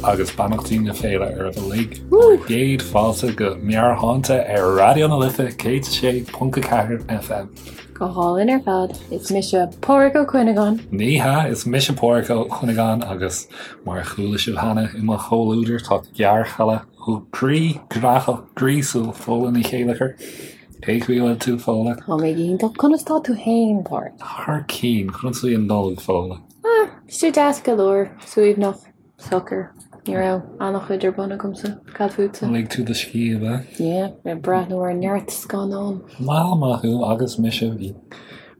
agus beannachtaí na féile oraibh uilig. Bhur gcéad fáilte go Meabhairshláinte ar Raidió na Life 106.4 FM. Go hálainn ar fad. Is mise Páraic Ó Cuinneagáin. Ní hea, is mise Páraic Ó Cuinneagáin agus mar a chuala sibh cheana i mo chomhluadar tá gearrchaile groí graitheach gríosúil Fódhla Ní Chéilleachair. Cén chaoi a bhfuil tú, Fódhla? Tá mé go hiontach. Conas tá tú féin, Páraic? Thar cinn. Conas a bhí an Nollaig, Fódhla? Ah, bhí sé deas go leor, suaimhneach, socair. Ní raibh an-chuid ar bun agamsa. Cad fútsa? Lig tú do scíth, ab ea? Yeah, ag breathnú ar neart scannán. Maith, maith thú, agus mise, bhí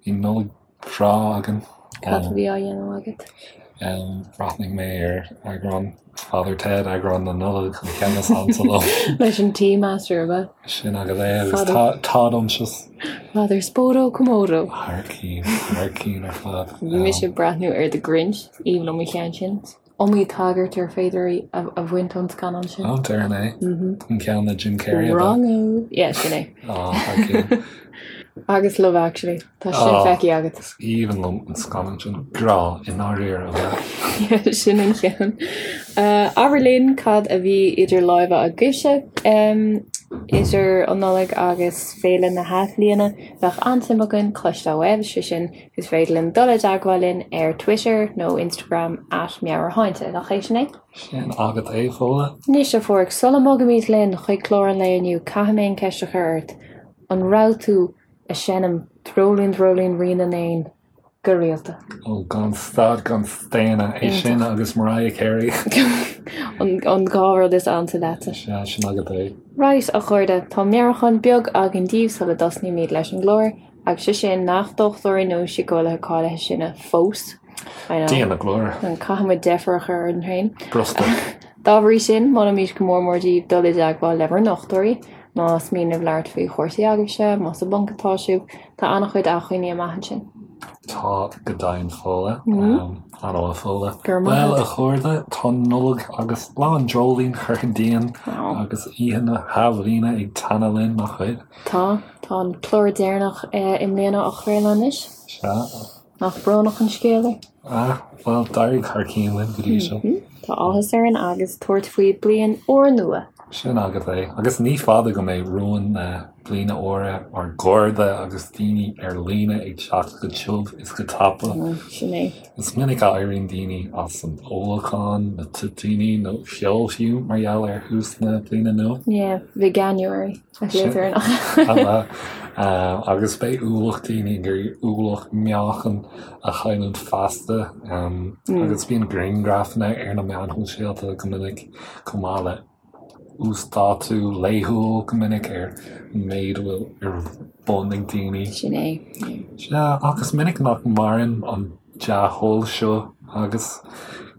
Nollaig bhreá againn. Cad a bhí á dhéanamh agat? Bhreathnaigh mé ar eagrán Father Ted, eagrán na Nollag, an ceann is ansa liom. Leis an Tea Master, ab ea? Sin agat é, agus Todd Unctious. Father Spodo Komodo. Thar cinn, thar cinn ar fad. Bhí mise ag breathnú ar The Grinch, aoibhinn liom an ceann sin. Iomaí tagairt ar féidir a bhaint ón scannán sin. Ó, déarfainn é. An ceann le Jim Carrey, ab ea? Wrong-o. Yeah, sin é. Ó, thar cinn. Agus Love Actually. Tá sin feicthe agat. Is aoibhinn liom an scannán sin. Grá i ndáiríre, ab ea? Yeah, sin an ceann. Abair linn cad a bhí idir lámha agaibhse idir an Nollaig agus Féile na hAthbhliana. Bheadh an-suim againn cloisteáil uaibh, sé sin, Is féidir linn dul i dteagmháil linn ar Twitter nó Instagram at Meabhairshláinte, nach é sin é? Sin agat é, Fódhla. Anois, a Pháraic, sula mbogaimid linn chuig clár an lae inniu, caithfidh mé an ceist a chur ort, an raibh tú ag seinm Dreoilín Dreoilín Rí na nÉan go rialta? Ó, gan stad gan staonadh, é sin agus Mariah Carey. An dá rud is ansa leatsa. Sea, sin agat é. Right, a chairde, tá meabhrúchán beag againn daoibh sula dtosnaímid leis an gclár. Agus sé sin nach dochtúirí nó síceolaithe cáilithe sinne fós. I know. Dia na glóire. Caithfidh muid deifir a chur orainn féin. Brostaigh. Dá bhrí sin, molaimid go mór mór daoibh dul i dteagmháil le bhur ndochtúirí, más mian libh labhairt faoi chúrsaí agaibhse, más i bponc atá sibh, tá an-chuid acmhainní amach ansin. Tá go deimhin Fódhla. An-mhaith Fódhla. Go raibh maith Bhuel, agat. a chairde, tá Nollaig agus Lá an Dreoilín curtha dínn agus Oíche na hAthbhliana ag teannadh linn, nach bhfuil? Tá. Tá an clár deireanach i mbliana á chraoladh anois. Sea. Nach brónach an scéal é? Ah, bhuel, d'éirigh thar cinn linn go dtí seo. Tá áthas orainn agus tabhairt faoi bliain úrnua. Sin agat é. Agus ní fada go mbeidh rúin na bliana úire, ár gcairde agus daoine ar líne ag teacht go tiubh is go tapa. Sin é. Is minic a éiríonn daoine as an ólachán, na toitíní nó ceol fiú mar gheall ar thús na bliana nua. Yeah, Veganuary. Agus beidh ualach daoine ag iarraidh ualach meáchain a chailliúint feasta. Agus bíonn grianghrafanna ar na meáin shóisialta go minic chomh maith le uasdátú laethúil go minic ar an méid a bhfuil ar bun ag daoine. Sin é. Sea, ach is minic nach maireann an dea-thoil seo agus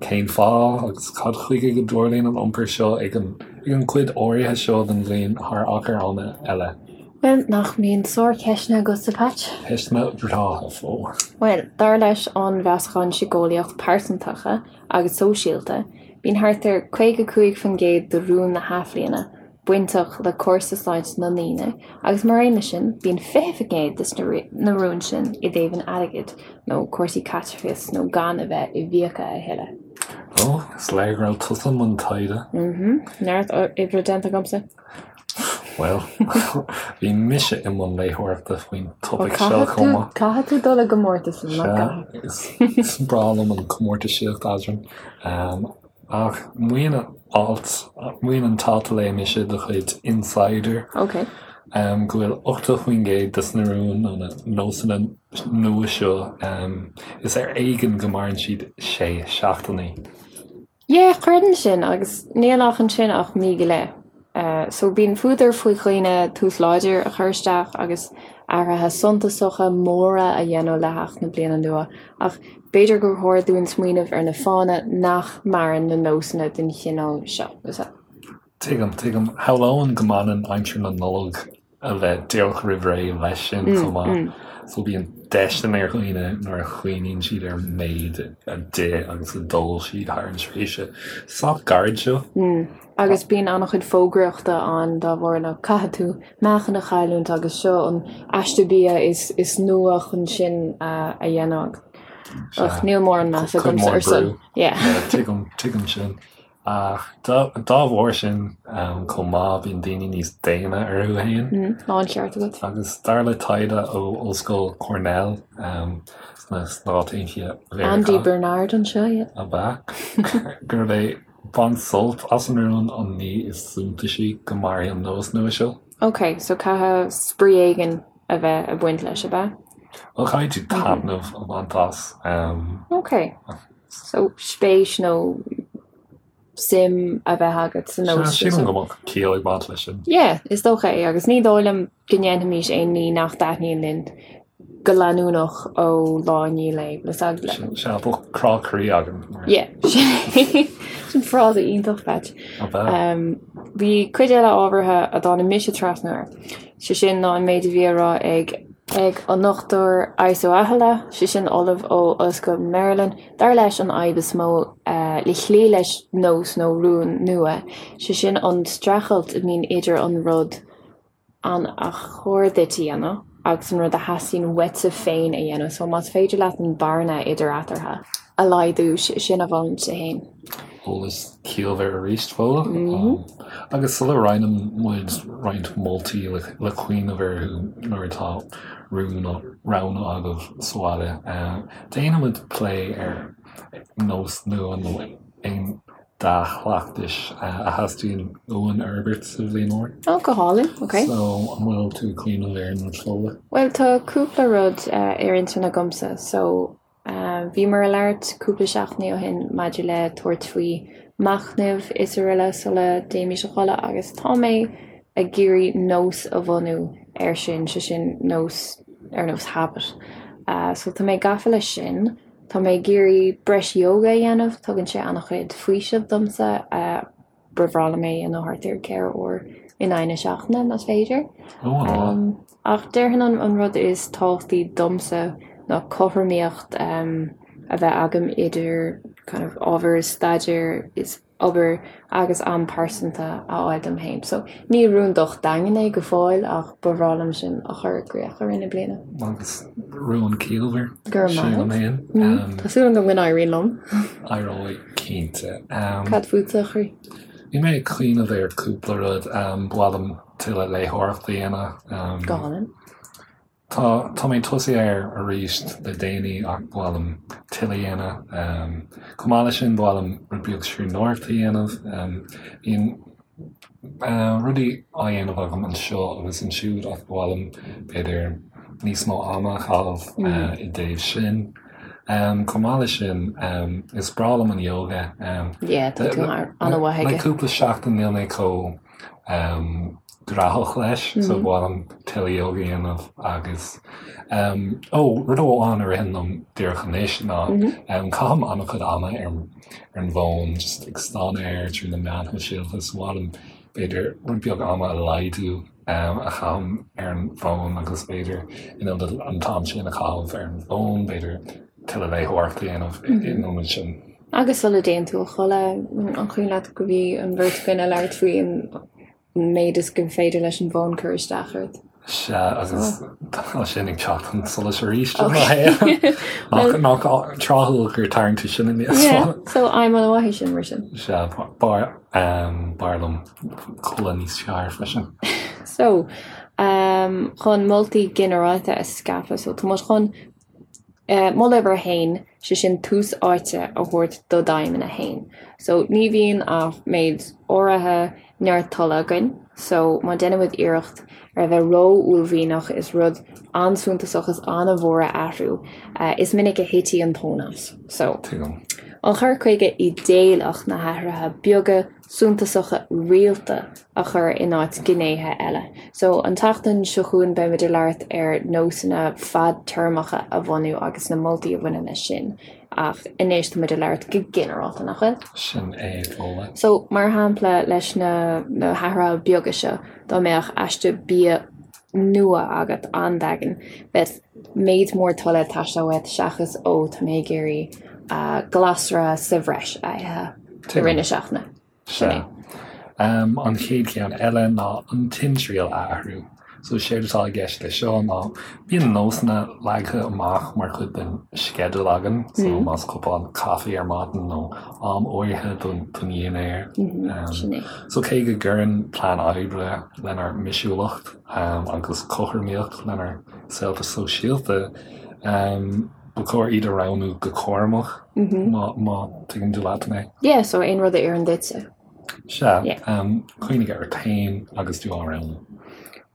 cén fáth agus cad chuige go dtarlaíonn an iompar seo ag an ag an gcuid áirithe seo den bhliain thar achar ama eile? Bhuel, nach mbíonn sárcheisteanna agatsa, Patch? Ceisteanna breátha, Fódhla. Bhuel, dar leis an Mheasachán Síceolaíoch Pearsantacha agus Sóisialta, bíonn thart ar 55% de rúin na hAthbhliana bainteach le cúrsaí sláinte na ndaoine agus mar aon leis sin bíonn 20% de na rúin sin i dtaobh an airgid nó cúrsaí caiteachais nó gan a bheith i bhfiacha a thuilleadh. Ó, is léir go raibh tusa i mbun taighde. Mhm, neart oibre déanta agamsa. Bhuel, bhí mise i mbun léitheoireachta faoin topaic seo chomh maith. Caithfidh tú dul i gcomórtas, nach gcaithfidh? Sea, is breá liom an chomórtaisíocht eadrainn. Ach maíonn an alt, maíonn an t-alt a léigh mise de chuid Insider Ok. go bhfuil 80% des na rúin nó na nósanna nua seo, is ar éigean go maireann siad sé seachtainí. Yeah, creidim sin agus níl ach ansin ach mí go leith. So bíonn fuadar faoi dhaoine tús láidir a chur isteach agus athruithe suntasacha móra a dhéanamh le theacht na bliana nua ach b'fhéidir gur chóir dúinn smaoineamh ar na fáthanna nach maireann na nósanna den chineál seo. Tuigim, tuigim. Shamhlóinn go mbaineann aimsir na Nollag a bheith díreach roimh ré leis sin chomh maith. So bíonn déistin ar dhaoine nuair a chuimhníonn siad ar an méid a d'ith agus a d'ól siad thar an tréimhse sách gairid seo. Agus bíonn an-chuid fógraíochta ann dá bharr nó caithfidh tú meáchan a chailliúint agus seo an aiste bia is is nua chun sin a dhéanamh. Ach níl mórán meas agamsa ar son. Yeah. Tuigim, tuigim sin. Ach dá bharr sin chomh maith, bíonn daoine níos déine orthu féin. Tá an ceart agat. Agus dar le taighde ó Ollscoil Cornell sna Stáit Aontaithe Mheiriceá. Andy Bernard anseo, yeah. Ab ea? Gurb é baint sult as an rún an ní is suntasaí go mairfidh an nós nua seo. Ok, so caithfidh spraoi éigin a bheith ag baint leis, ab ea? Bhuel, caithfidh tú taitneamh a bhaint as. Ok. So, spéis nó suim a bheith agat sa nós sin. Sílim go mbeadh ciall ag baint leis sin. Yeah, is dócha é, agus ní dóigh liom go ndéanfaimis aon ní nach dtaitníonn linn go leanúnach ó lá i ndiaidh lae, le Sea, bheadh crá croí againn. Yeah, sin frása iontach, Patch. Ab ea? Bhí cuid eile ábhartha a dtáinig mise trasna air, sé sin ná an méid a bhí á rá ag ag an Dr Iso Ahla, sé sin ollamh ó Ollscoil Maryland. Dar leis an fhadhb is mó le cloí leis nós nó rún nua, sé sin an streachailt a bhíonn idir an rud an ar chóir duit a dhéanamh agus an rud a theastaíonn uaitse féin a dhéanamh. So más féidir leat an bearna idir eatarthu a laghdú, sin a mholfainnse féin. Eolas ciallmhar arís, Fódhla. Agus sula roinneann muid roinnt moltaí le cuimhneamh orthu nuair atá rún á roghnú agaibh sa bhaile, déanfaidh muid plé ar nós nua nó aon dea-chleachtais a theastaíonn uainn a fhorbairt sa bhliain úr. Ó, go hálainn, ok. So, an bhfuil tú ag cuimhneamh ar aon rud, Fódhla? Bhuel, tá cúpla rud ar intinn agamsa. So, Bhíomar ag labhairt cúpla seachtainí ó shin maidir le tabhairt faoi machnamh is araile sula dtéimis a chodladh agus tá mé ag iarraidh nós a bhunú air sin, sé sin nós ar nós habit. So tá mé gafa leis sin. Tá mé ag iarraidh breis yoga a dhéanamh, tugann sé an-chuid faoisimh domsa. Ba bhreá liom é a dhéanamh thart ar 4 uair in aghaidh na seachtaine, más féidir. Ach déarfainn an rud is tábhachtaí domsa ná cothromaíocht a bheith agam idir kind of ábhar staidéir is obair agus am pearsanta a fháil dom féin. So ní rún docht daingean é go fóill ach ba bhreá liom sin a chur i gcrích i rith na bliana. Agus rún ciallmhar. Go raibh maith agat. Tá súil agam go n-éiríonn liom. Éireoidh. Cinnte. Cad fútsa, a chroí? Bhí mé ag cuimhneamh ar cúpla rud. Ba mhaith liom tuilleadh léitheoireachta a dhéanamh. Go hálainn. Tá, tá mé tosaithe air arís le déanaí ach ba mhaith liom tuilleadh a dhéanamh. Chomh maith leis sin, ba mhaith liom rud beag scríbhneoireachta a dhéanamh. Bíonn rudaí á dhéanamh agam anseo agus ansiúd ach ba mhaith liom, b'fhéidir, níos mó ama a chaitheamh i dtaobh sin. Chomh maith leis sin, is breá liom an yoga. Yeah, tá tú an-mhaith aige. Le cúpla seachtain níl mé chomh gnóthach leis, so ba mhaith liom tuilleadh yoga a dhéanamh agus, ó, rud amháin a ritheann liom díreach anois ná caithim an-chuid ama ar ar an bhfón, just ag stánadh air trí na meáin shóisialta, so ba mhaith liom b'fhéidir rud beag ama a laghdú a chaithim ar an bhfón agus b'fhéidir in ionad an t-am sin a chaitheamh ar an bhfón, b'fhéidir tuilleadh léitheoireachta a dhéanamh in ionad sin. Agus sula dtéann tú a chodladh, an cuimhin leat go bhí an bheirt againn ag labhairt faoi an méid is gur féidir leis an bhfón cur isteach ort. Sea, agus tá sin ag teacht chun solais arís i mo shaol. Nach tráthúil gur tharraing tú sin aníos. Yeah, so aidhm an-mhaith é sin, mar sin. Sea, b'fhearr liom codladh níos fearr freisin. So, chun moltaí ginearálta a scaipeadh, so tá muid chun Moladh uimhir a haon, sé sin tús áite a thabhairt do d'aidhmeanna féin. So ní bhíonn ach méid áirithe neart tola againn, so má déanaimid iarracht ar a bheith ró-uaillmhianach is rud an-suntasach is an-mhór a athrú, is minic a thitfidh an tóin as. So, an cur chuige idéalach na hathruithe beaga suntasacha rialta a chur in áit gnéithe eile. So, an tseachtain seo chugainn beimid ag labhairt ar nósanna fadtéarmacha a bhunú agus na moltaí a bhaineann leis sin. Ach anois táimid ag labhairt go ginearálta, nach bhfuil? Sin é, Fódhla. So, mar shampla, leis na na hathruithe beaga seo, dá mbeadh aiste bia nua agat an-daingean, bheadh méid mór tola ag teastáil uait seachas ó tá mé ag iarraidh glasra sa bhreis a ithe i rith na seachtaine. Sin é. An chéad cheann eile ná an timthriall a athrú. So séard atá i gceist leis seo ná bíonn nósanna leagtha amach mar chuid den sceideal againn, so más cupán caife ar maidin nó am áirithe don dhinnéar. Sin é. So cé go gcuireann plean oibre lenár mbisiúlacht agus cothromaíocht lenár saolta sóisialta, ba chóir iad a roghnú go cúramach, má tuigeann tú leat mé. Yeah, so aon rud a oireann duitse. Sea, cuimhnigh ort féin agus tú á roghnú.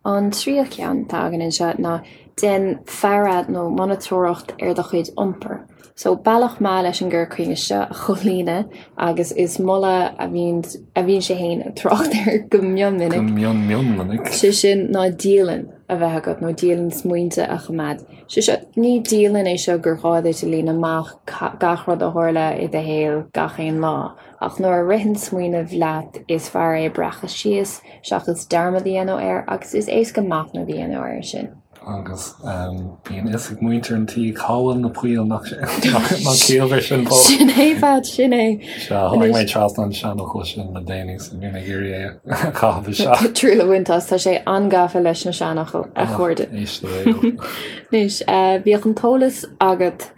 An tríú ceann atá againn anseo ná déan faire nó monatóireacht ar do chuid iompair. So, bealach maith leis an gcur chuige seo a chomhlíonadh agus is moladh a bhíonn a bhíonn sé féin ag trácht air go mion minic. Go mion mion minic. Sé sin ná dialann a bheith agat nó dialann smaointe a choimeád. Sé seo, ní dialann é seo gur ghá duit a líonadh amach gach rud a tharla i do shaol gach aon lá. Ach nuair a ritheann smaoineamh leat is fearr é a breacadh síos seachas dearmad a dhéanamh air agus is éasca machnamh a dhéanamh air sin. Agus bíonn fhios ag muintir an tí cá bhfuil na poill nach ciallmhar sin fós. Sin é Pat, sin é. Sea, tháinig mé trasna an seanfhocal sin le déanaí so bhí mé ag iarraidh é a chaitheamh isteach. Triail a bhaint as, tá sé an-gafa leis na seanfhocail, a chairde. Éist le réidh. Anois, bíodh an t-eolas agat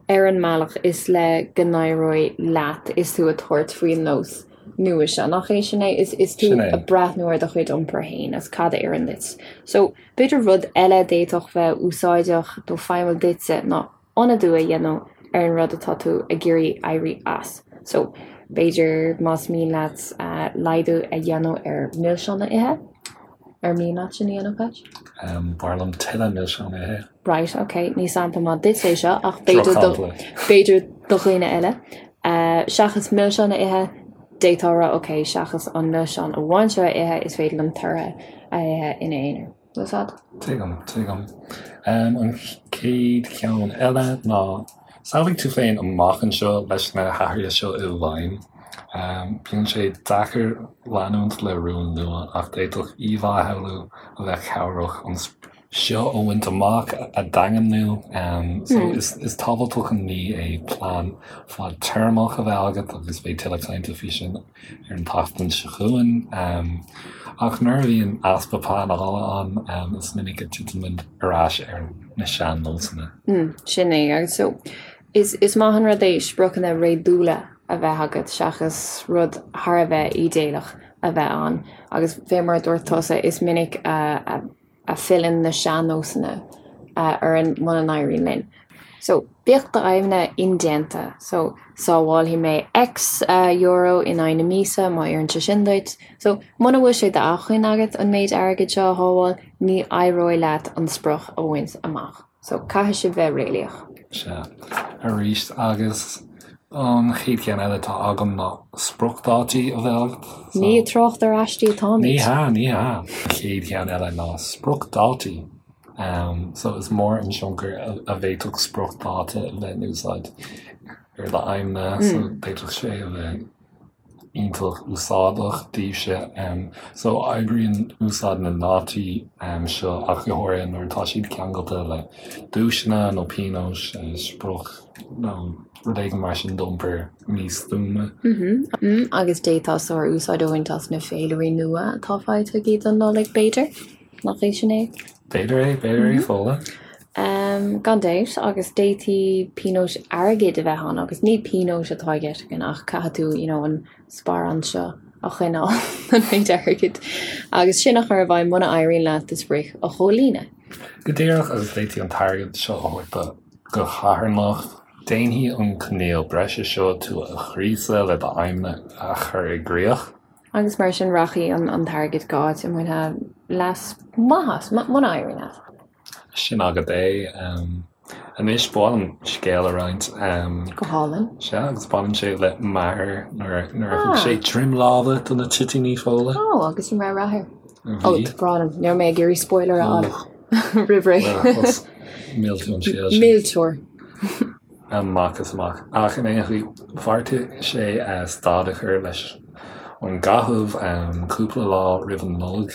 ar an mbealach is le go n-éireoidh leat is tú ag tabhairt faoin nós nua seo. Nach é sin é? Is tú ag breathnú ar do chuid iompair féin agus cad a oireann duit. So, b'fhéidir rud eile a d'fhéadfadh bheith úsáideach nó feidhmiúil duitse ná ionadú a dhéanamh ar an rud atá tú ag iarraidh éirí as. So, b'fhéidir más mian leat laghdú a dhéanamh ar mhilseáin a ithe, ar mian leat sin a dhéanamh, Pat? B'fhearr liom tuilleadh milseán a ithe. Right, ok, ní sampla maith duit é seo ach b'fhéidir do, b'fhéidir do dhaoine eile. Seachas milseáin a ithe, d'fhéadfá a rá, ok, seachas an milseán amháin seo a ithe, is féidir liom tortha a ithe ina aonar. Bhfuil fhios a'd? Tuigim, tuigim. An chéad cheann eile ná samhlaigh tú féin amach anseo leis na hathruithe seo i bhfeidhm. Bíonn sé deacair leanúint le rún nua ach d'fhéadfadh íomhá a shamhlú a bheadh cabhrach an seo a bhaint amach a dhaingniú. So is tábhachtach an ní é plean fadtéarmach a bheith agat agus beidh tuilleadh cainte faoi sin ar an tseachtain seo chugainn. Ach nuair a bhíonn easpa pleanála ann, is minic a titeann muid ar ais ar na sean-nósanna. Sin é. Agus so is is maith an rud é spriocanna réadúla a bheith agat seachas rud thar a bheith ídéalach a bheith ann. Agus fé mar a dúirt tusa, is minic a a filleann na sean-nósanna orainn muna n-éiríonn linn. So, bíodh d'aidhmeanna indéanta. So, sábhálfaidh mé X euro in aghaidh na míosa má oireann sé sin duit. So, muna bhfuil sé d'acmhainn agat an méid airgid seo a shábháil, ní éireoidh leat an sprioc a bhaint amach. So, caithfidh sibh bheith réalaíoch. Sea, arís, agus an chéad cheann eile atá agam ná spriocdhátaí a bheith agat. So, Ní ag trácht ar aistí atáimid. Ní hea, ní hea. An chéad cheann eile ná spriocdhátaí. Um, so is mór an tionchar a, a bhféadfadh spriocdháta a bheith in úsáid ar d'aidhmeanna, so d'fhéadfadh sé a bheith iontach úsáideach daoibhse. So oibríonn úsáid na ndátaí seo ach go háirithe nuair atá siad ceangailte le duaiseanna nó pionóis, sprioc nó rud éigin mar sin d'iompar místuama. Agus d'fhéadfá sár-úsáid a bhaint as na féilirí nua atá faighte agaibh don Nollaig, b'fhéidir? Nach é sin é? B'fhéidir é, b'fhéidir é, Fódhla. Gan dabht, agus d'fhéadfaí pionóis airgid a bheith ann, agus ní pionóis atá i gceist againn ach caithfidh tú you know an sparán seo a choinneáil, an méid airgid, agus sin a chur i bhfeidhm muna éiríonn leat do sprioc a chomhlíonadh. Go díreach, agus d'fhéadfaí an t-airgead seo a thabhairt do do charthanacht. Déanfaidh an coinníoll breise seo tú a ghríosadh le d'aidhmeanna a chur i gcrích. Agus mar sin rachaidh an t-airgead go áit a mbainfeá leas maith as, muna éiríonn leat. Sin agat é. Anois, ba mhaith liom scéal a roinnt. Go hálainn. Sea, agus baineann sé le m'athair nuair a thug sé droim láimhe do na toitíní Fódhla. Ó, agus an raibh rath air? Ó, tá brón orm, ní raibh mé ag iarraidh spoiler a fháil roimh ré. Mhill tú an scéal sin. Millteoir. Amach is amach. Ach in aon chaoi, bheartaigh sé stad a chur leis. ón gcaitheamh cúpla lá roimh an Nollaig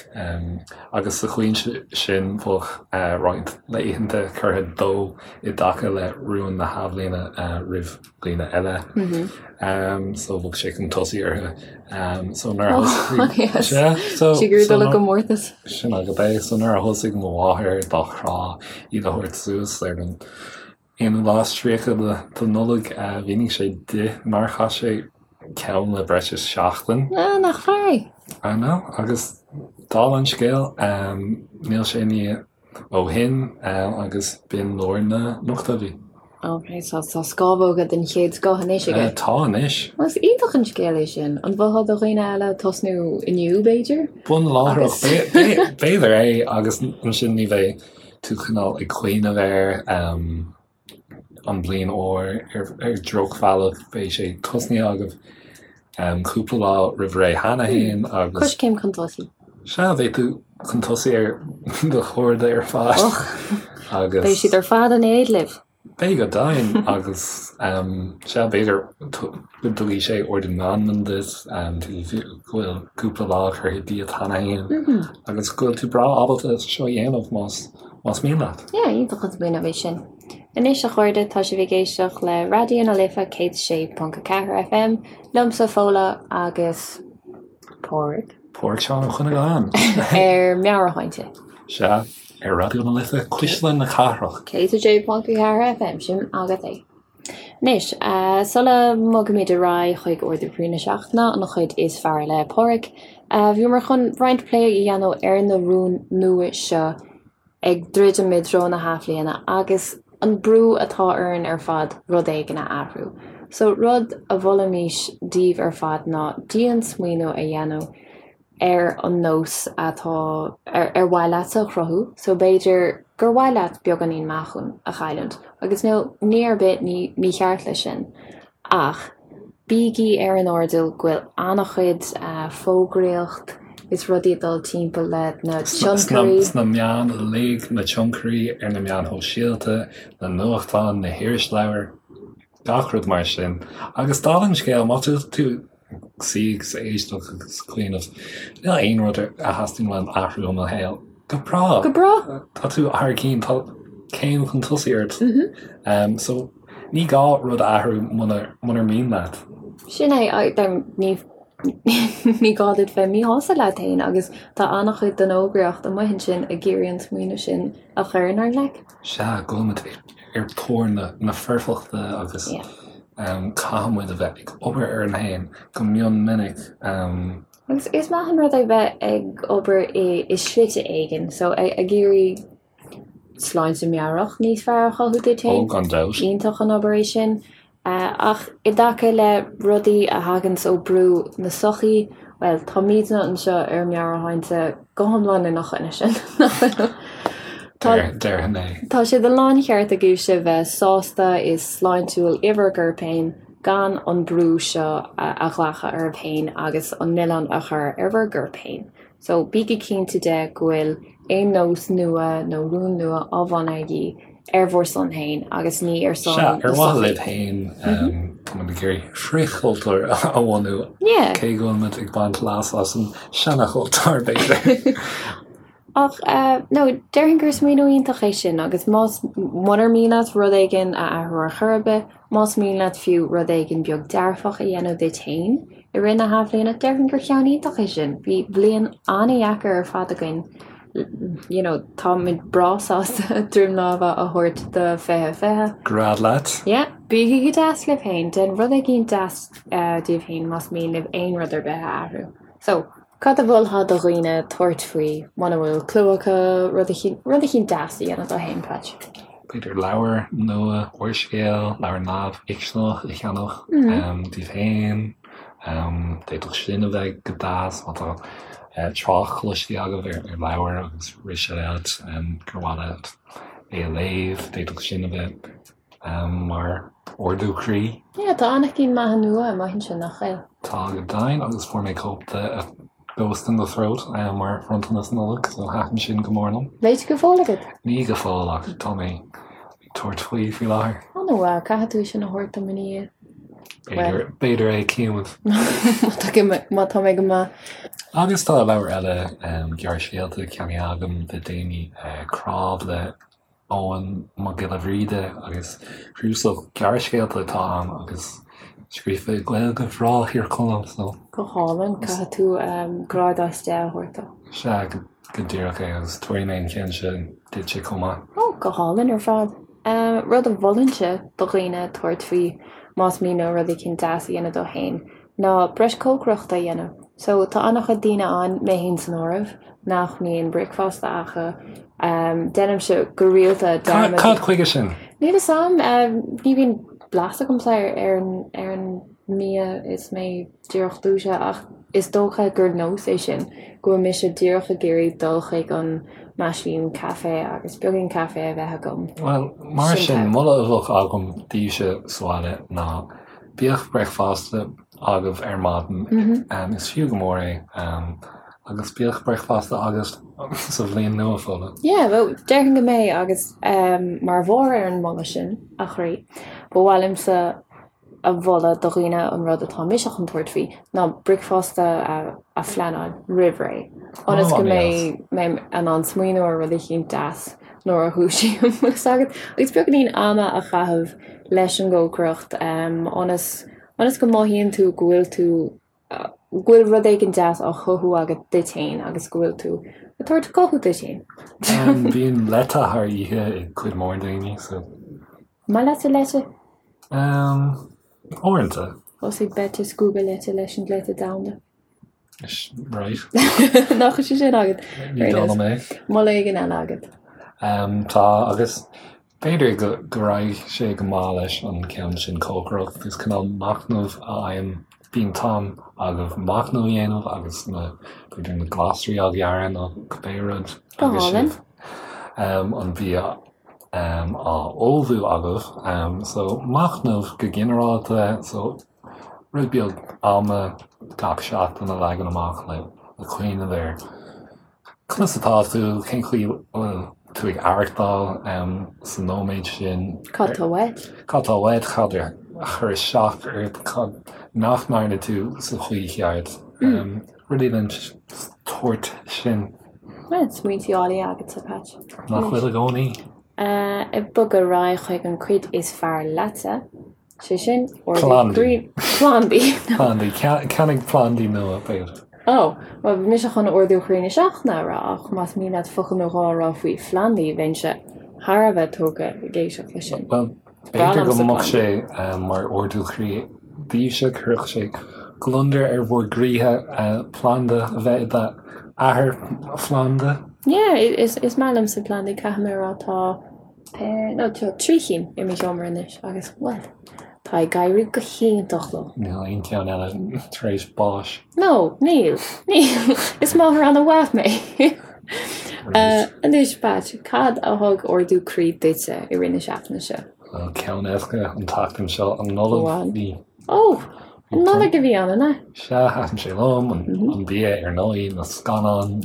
agus sa chaoi sin bheadh roinnt laethanta curtha dó i dtaca le rúin na hathbhliana roimh dhaoine eile. So bheadh sé chun tosaigh orthu. So nuair a thosaigh Sea, so Sé gur dul i gcomórtas. Sin agat é. So nuair a thosaigh mo mháthair dá chrá iad a thabhairt suas ar an aonú lá is 30 de Nollaig, mhínigh sé di nár chaith sé ceann le breis is seachtain. Ah, nach fear é! I know, agus dála an scéil, níl sé i ndiaidh ó shin agus b'in lár na n-ochtóidí. Ok, so tá scamhóga den chéad scoth anois aige. Tá anois. Bhuel, is iontach an scéal é sin. An mholfá do dhaoine eile tosnú inniu, b'fhéidir? Bun láithreach, b'fhéidir é, agus ansin ní bheidh tú cineál ag cuimhneamh ar an bliain úr ar dhrochbhealach, beidh sé tosnaithe agaibh cúpla lá roimh ré cheana féin agus. Coiscéim chun tosaigh. Sea, beidh tú chun tosaigh ar do chairde ar fad agus. Beidh siad ar fad in éad libh. Beidh go deimhin agus sea, b'fhéidir go dtabharfaidh sé ardú meanman duit, go bhfuil cúpla lá curtha díot cheana féin agus go bhfuil tú breá ábalta seo a dhéanamh más más mian leat. Yeah, iontach an smaoineamh é sin. Anois a chairde, tá sibh ag éisteacht le Raidió na Life 106.4 FM, liomsa Fódhla agus Pádraig. Pádraig Seán Ó Cuinneagáin. Ar Meabhairshláinte. Sea. Ar Raidió na Life, Cuisle na Cathrach. 106.4 FM, sin agat é. Anois, sula mbogaimid ar aghaidh chuig Ardú Croí na Seachtaine, an chuid is fearr le Pádraig, bhíomar chun roinnt plé a dhéanamh ar na rúin nua seo ag druidim i dtreo na hathbhliana agus an brú atá orainn ar fad rud éigin a athrú. So, rud a mholfaimis daoibh ar fad ná dian-smaoineamh a dhéanamh ar an nós atá ar ar mhaith leatsa a chruthú so b'fhéidir gur mhaith leat beagáinín meáchain a chailliúint agus níl ní ar bith ní mícheart leis sin ach bígí ar an airdeall go bhfuil an-chuid fógraíocht is rudaí ag dul timpeall le na tionchairí. Sna meáin uilig, na tionchairí ar na meáin shóisialta, na nuachtáin, na hirisleabhair, gach rud mar sin. Agus dála an scéil, má tá tú ag suí agus ag éisteacht agus ag cuimhneamh, níl aon rud a theastaíonn uaim athrú i mo shaol. Go breá! Go breá! Tá tú thar cinn, tá céim chun tosaigh ort. So, ní gá rud a athrú munar mian leat. Sin é, ní ní gá duit bheith míshásta leat féin agus tá an-chuid den fhógraíocht amuigh ansin ag iarraidh an smaoineamh sin a chur inár gcloigne. Sea, go bhfuil muid ar thóir na foirfeachta agus caithfidh muid a bheith ag obair orainn féin go mion minic. Agus is maith an rud é bheith ag obair i slite éigin, so ag iarraidh sláinte meabhrach níos fearr a chothú duit féin. Ó, gan dabht. Iontach an obair é sin. Ach i dtaca le rudaí a thaganns ó brú na sochaí, bhuel, táimidne anseo ar Meabhairshláinte go hiomlán ina choinne sin, nach bhfuil? Tá, Déarfainn é. Tá sé de láncheart agaibhse bheith sásta is sláintiúil i bhur gcorp féin gan an brú seo a ghlacadh oraibh féin agus an milleán a chur ar bhur gcorp féin. So, bígí cinnte de go bhfuil aon nós nua nó rún nua á bhunú agaibh ar bhur son féin agus ní ar son Sea, ar mhaithe libh féin, tá muid ag iarraidh frithchultúr a bhunú, cé go bhfuil muid ag baint leas as an seanachultúr, b'fhéidir. Ach, no, déarfainn gur smaoineamh iontach é sin agus más, munar mian leat rud éigin a athrú ar chor ar bith, más mian leat fiú rud éigin beag dearfach a dhéanamh duit féin i rith na hathbhliana, déarfainn gur ceann iontach é sin. Bhí bliain an-dheacair ar fad againn, you know, táimid breá sásta droim láimhe a thabhairt do 2020. Gread leat. Yeah, bígí go deas libh féin, déan rud éigin deas daoibh féin más mian libh aon rud ar bith a athrú. So, Cad a mholfá do dhaoine tabhairt faoi muna bhfuil clue acu rud eicínt deas a dhéanamh dóibh féin, Patch? B'fhéidir leabhar nua, úrscéal, leabhar neamhfhicseanach a cheannach daoibh féin. D'fhéadfadh sin a bheith go deas má tá trácht cloiste agaibh ar leabhar agus rith sé leat gur mhaith leat é a léamh. D'fhéadfadh sin a bheith mar ardú croí. Yeah, tá an-chinn maithe nua amuigh ansin, nach bhfuil? Tá go deimhin, agus fuair mé cóip de Ghost in the Throat mar bhronntanas Nollag, so thaitin sin go mór liom. Léite go fóill agat? Ní go fóill, ach tá mé ag tabhairt faoi faoi láthair. An-mhaith, caithfidh tú sin a thabhairt dom ina dhiaidh. B'fhéidir é, cífimid. Má tá mé go maith. Agus tá leabhar eile gearrscéalta ceannaithe agam le déanaí, Cnámh le Eoghan Mac Giolla Bhríde agus cnuasach gearrscéalta atá ann agus scríofa i Gaeilge bhreá Thír Chonaill so. Go hálainn, caithfidh tú grád as 10 a thabhairt dó. Sea, go díreach é agus tabharfaidh mé an ceann sin duitse chomh maith. Ó, go hálainn ar fad. Rud a mholfainnse do dhaoine tabhairt faoi más mian leo rud éicint deas a dhéanamh dóibh féin ná breis cócaireachta a dhéanamh. So tá an-chuid daoine ann, mé féin san áireamh, nach mbíonn bricfeasta acu. Déanaimse go rialta dearmad. Cad chuige sin? Níl fhios a'm. Ní bhíonn blas agamsa ar an mbia is mé díreach dúisithe ach is dócha gur nós é sin, go bhfuil mise díreach ag iarraidh dul chuig an meaisín caife agus beagán caife a bheith agam. Bhuel, mar sin, moladh a bheadh agam daoibhse sa bhaile ná bíodh bricfeasta agaibh ar maidin, is fiú go mór é, agus bíodh bricfeasta agat sa bhliain nua, Fódhla. Yeah, bhuel, déarfainn go mbeidh agus mar bharr ar an moladh sin, a chroí, ba mhaith liomsa a mholadh do dhaoine an rud atá mise chun tabhairt faoi ná bricfeasta a phleanáil roimh ré ionas go mbeidh mé in ann smaoineamh ar rud eicínt deas nuair a dhúisím agus agus beagáinín ama a chaitheamh leis an gcócaireacht ionas ionas go mothaíonn tú go bhfuil tú go bhfuil rud éigin deas á chothú agat duit féin agus go bhfuil tú ag tabhairt cothú duit féin. Bíonn leite thar oíche ag cuid mhór daoine so. Maith leatsa leite? Umm, uaireanta. Thosaigh Beit ag scuabadh leite leis an gcleite domhanda. Right. Nach bhfuil sé sin agat? Ní dóigh liom é. Moladh éigin eile agat? Umm, tá, agus b'fhéidir go, go raghaidh sé go maith leis an ceann sin cócaireacht. Is cineál machnamh a fhaighim, bíonn t-am agaibh machnamh a dhéanamh agus na, b'fhéidir na glasraí á ghearradh nó cibé rud. Go hálainn. Umm, an bia á ullmhú agaibh. So, machnamh go ginearálta, so rud beag ama gach seachtain a leagan amach le cuimhneamh ar conas atá tú, cén chaoi a bhfuil tú ag aireachtáil sa nóiméad sin. Cad tá uait? Cad tá uait, cad a chuir isteach ort, cad nach ndearna tú sa chaoi cheart. Rudaí den tsórt sin. Bhuel, smaointí áille agatsa, Patch. Nach bhfuil i gcónaí? Ag bogadh ar aghaidh chuig an cuid is fearr leatsa, sé sin, ordú Plandaí. Plandaí. Plandaí. Ceannaigh plandaí nua, b'fhéidir. Ó, bhuel, bhí mise chun ardú chroí na seachtaine a rá, ach más mian leat focal nó dhó a rá faoi phlandaí, bheinnse thar a bheith tógtha ag éisteacht leis sin. Bhuel, B'fhéidir go mbeadh sé mar ardú croí daoibhse, chuirfeadh sé gliondar ar bhur gcroíthe planda a bheith i d'athair phlanda. Yeah, is maith liomsa plandaí, caithfidh mé a rá, tá nó tá 3 chinn i mo sheomra anois agus, bhuel, tá ag éirí go hiontach leo. Níl aon cheann eile tar éis báis. No, níl, níl. Is máthair an-mhaith mé. Anois, Patch, cad a thug ardú croí duitse i rith na seachtaine seo? Bhuel, ceann éasca an tseachtain seo, an Nollaig. Bhí. Ó! An Nollaig a bhí ann, an ea? Sea, thaitin sé liom, an bia ar ndóigh, na scannáin,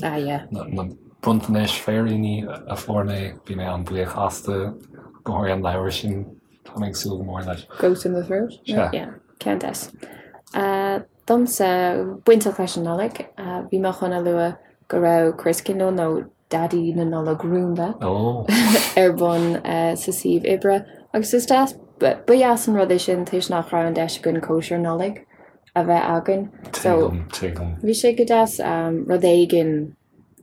na bronntanais, féiríní a fuair mé, bhí mé an-bhuíoch astu, go háirithe an leabhar sin, tá mé ag súil go mór leis. Goat in the Throat? Sea. Yeah, ceann deas. Domsa, bainteach leis an Nollaig, bhí mé chun a lua go raibh Christkindl nó Daidí na Nollag Rúnda ar bun sa suíomh oibre agus is deas, ba dheas an rud é sin toisc nach raibh an deis againn cóisir Nollag a bheith againn. So, Tuigim, tuigim. Bhí sé go deas rud éigin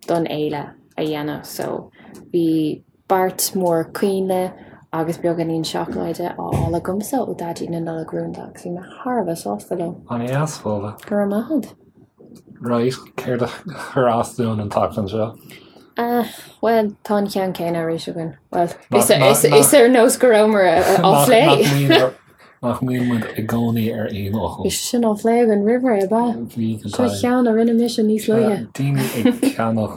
don fhéile a dhéanamh so bhí beart mór coinnle agus beagáinín seacláide á fháil agamsa ó Daidí na Nollag Rúnda agus bhí mé thar a bheith sásta leo. An-deas, Fódhla. Go raibh maith agat. Right, céard a chuir as dúinn an tseachtain seo? Ah, bhuel, tá an ceann céanna arís againn. Bhuel, is ar nós go rabhamar á phlé. Nach mbíonn muid i gcónaí ar aon fhocal. Bhí sé sin á phlé againn roimh ré, ab ea? Bhí go Seo ceann a rinne mise níos luaithe. Daoine ag ceannach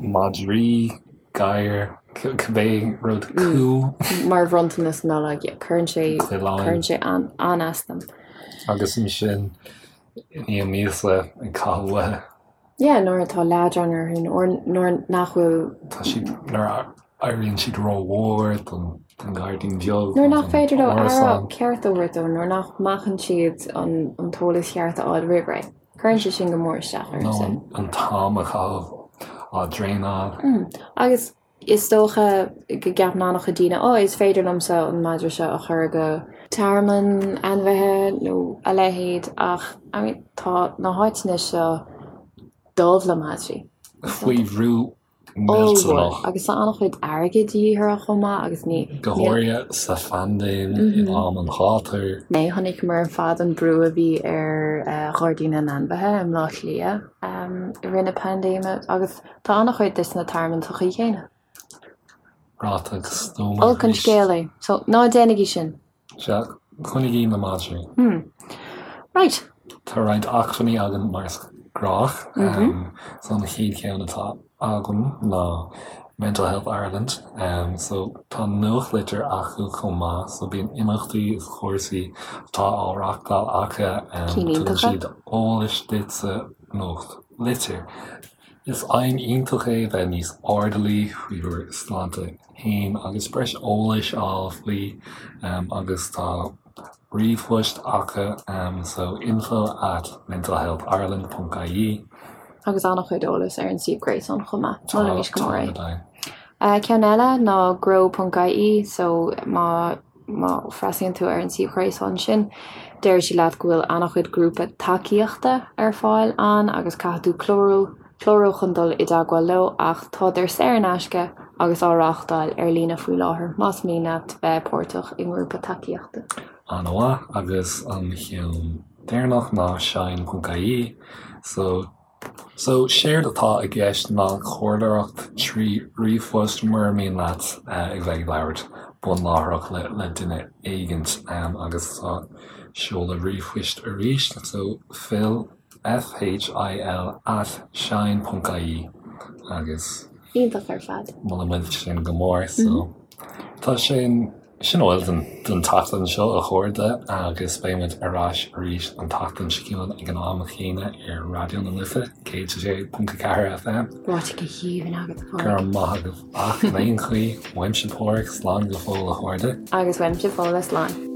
madraí, gadhair, cibé rud cú. Mar bhronntanas Nollag, cuireann sé, cuireann sé an-as dom. Agus ansin, i ndiaidh míosa ag caitheamh uathu. Yeah, nuair atá leadrán orthu, or nuair nach bhfuil. Tá siad, nuair a éiríonn siad rómhór don. Den ghairdín beag. Nuair nach féidir leo aire ceart a thabhairt dó, nuair nach mbacann siad an t-eolas cheart a fháil roimh ré. Cuireann sé sin go mór isteach ormsa. Nó an t-am a chaitheamh á dtraenáil. Agus is dócha go gceapann an-chuid daoine, 'Ó, is féidir liomsa an madra seo a chur go tearmann ainmhithe nó a leithéid' ach I mean tá na háiteanna seo dubh le madraí. Faoi bhrú Ollmhór. Agus tá an-chuid airgid de dhíth orthu chomh maith agus ní. Go háirithe sa phaindéim in am an ghátair. Chonaiceamar ar fad an brú a bhí ar Ghairdín na nAinmhithe i mBleá Cliath i rith na paindéime agus tá an-chuid de sna tearmainn sa chaoi chéanna. Ráite go stuama Olc an scéal é. So, ná déanaigí sin! Sea, coinnigí na madraí. Hmm. Right. Tá roinnt acmhainní againn mar is gnách. So an chéad cheann atá agam ná Mental Health Ireland. So tá nuachtlitir acu chomh maith, so bíonn imeachtaí is cúrsaí atá á reachtáil acu. Tugann siad eolais duit sa nuachtlitir. Is aidhm iontach é bheith níos airdeallaí faoi bhur sláinte féin agus breis eolais a fháil faoi agus tá ríomhphost acu so info at mentalhealthireland ponc ie. Agus an-chuid eolais ar an suíomh gréasáin chomh maith. Molaimís go mór é. Ceann eile ná grow ponc ie so má Má fhreastalaíonn tú ar an suíomh ghréasáin sin, déarfaidh siad leat go bhfuil an-chuid grúpa tacaíochta ar fáil ann agus caithfidh tú clárú clárú chun dul i dteagmháil leo ach tádar saor in aisce agus á reáchtáil ar líne faoi láthair más mian leat bheith páirteach i ngrúpa tacaíochta. An-mhaith, agus an ceann deireanach ná shine.ie so So, séard atá i gceist ná comhairleoireacht trí ríomhphost mura mian leat a bheith ag labhairt bunláithreach le le duine éigint agus tá seoladh ríomhphoist arís, so phil, F-H-I-L at shine ponc ie agus. Iontach ar fad. Molaimid sin go mór, so tá sin. Sin a bhfuil don tseachtain seo, a chairde, agus beidh muid ar ais arís an tseachtain seo chugainn ag an am chéanna ar Raidió na Life 106.4 FM. Ráite go haoibhinn agat, a Phádraig. Go raibh maith agat. Ach in aon chaoi, uaimse Pádhraic, slán go fóill a chairde. Agus uaimse Fódhla, slán.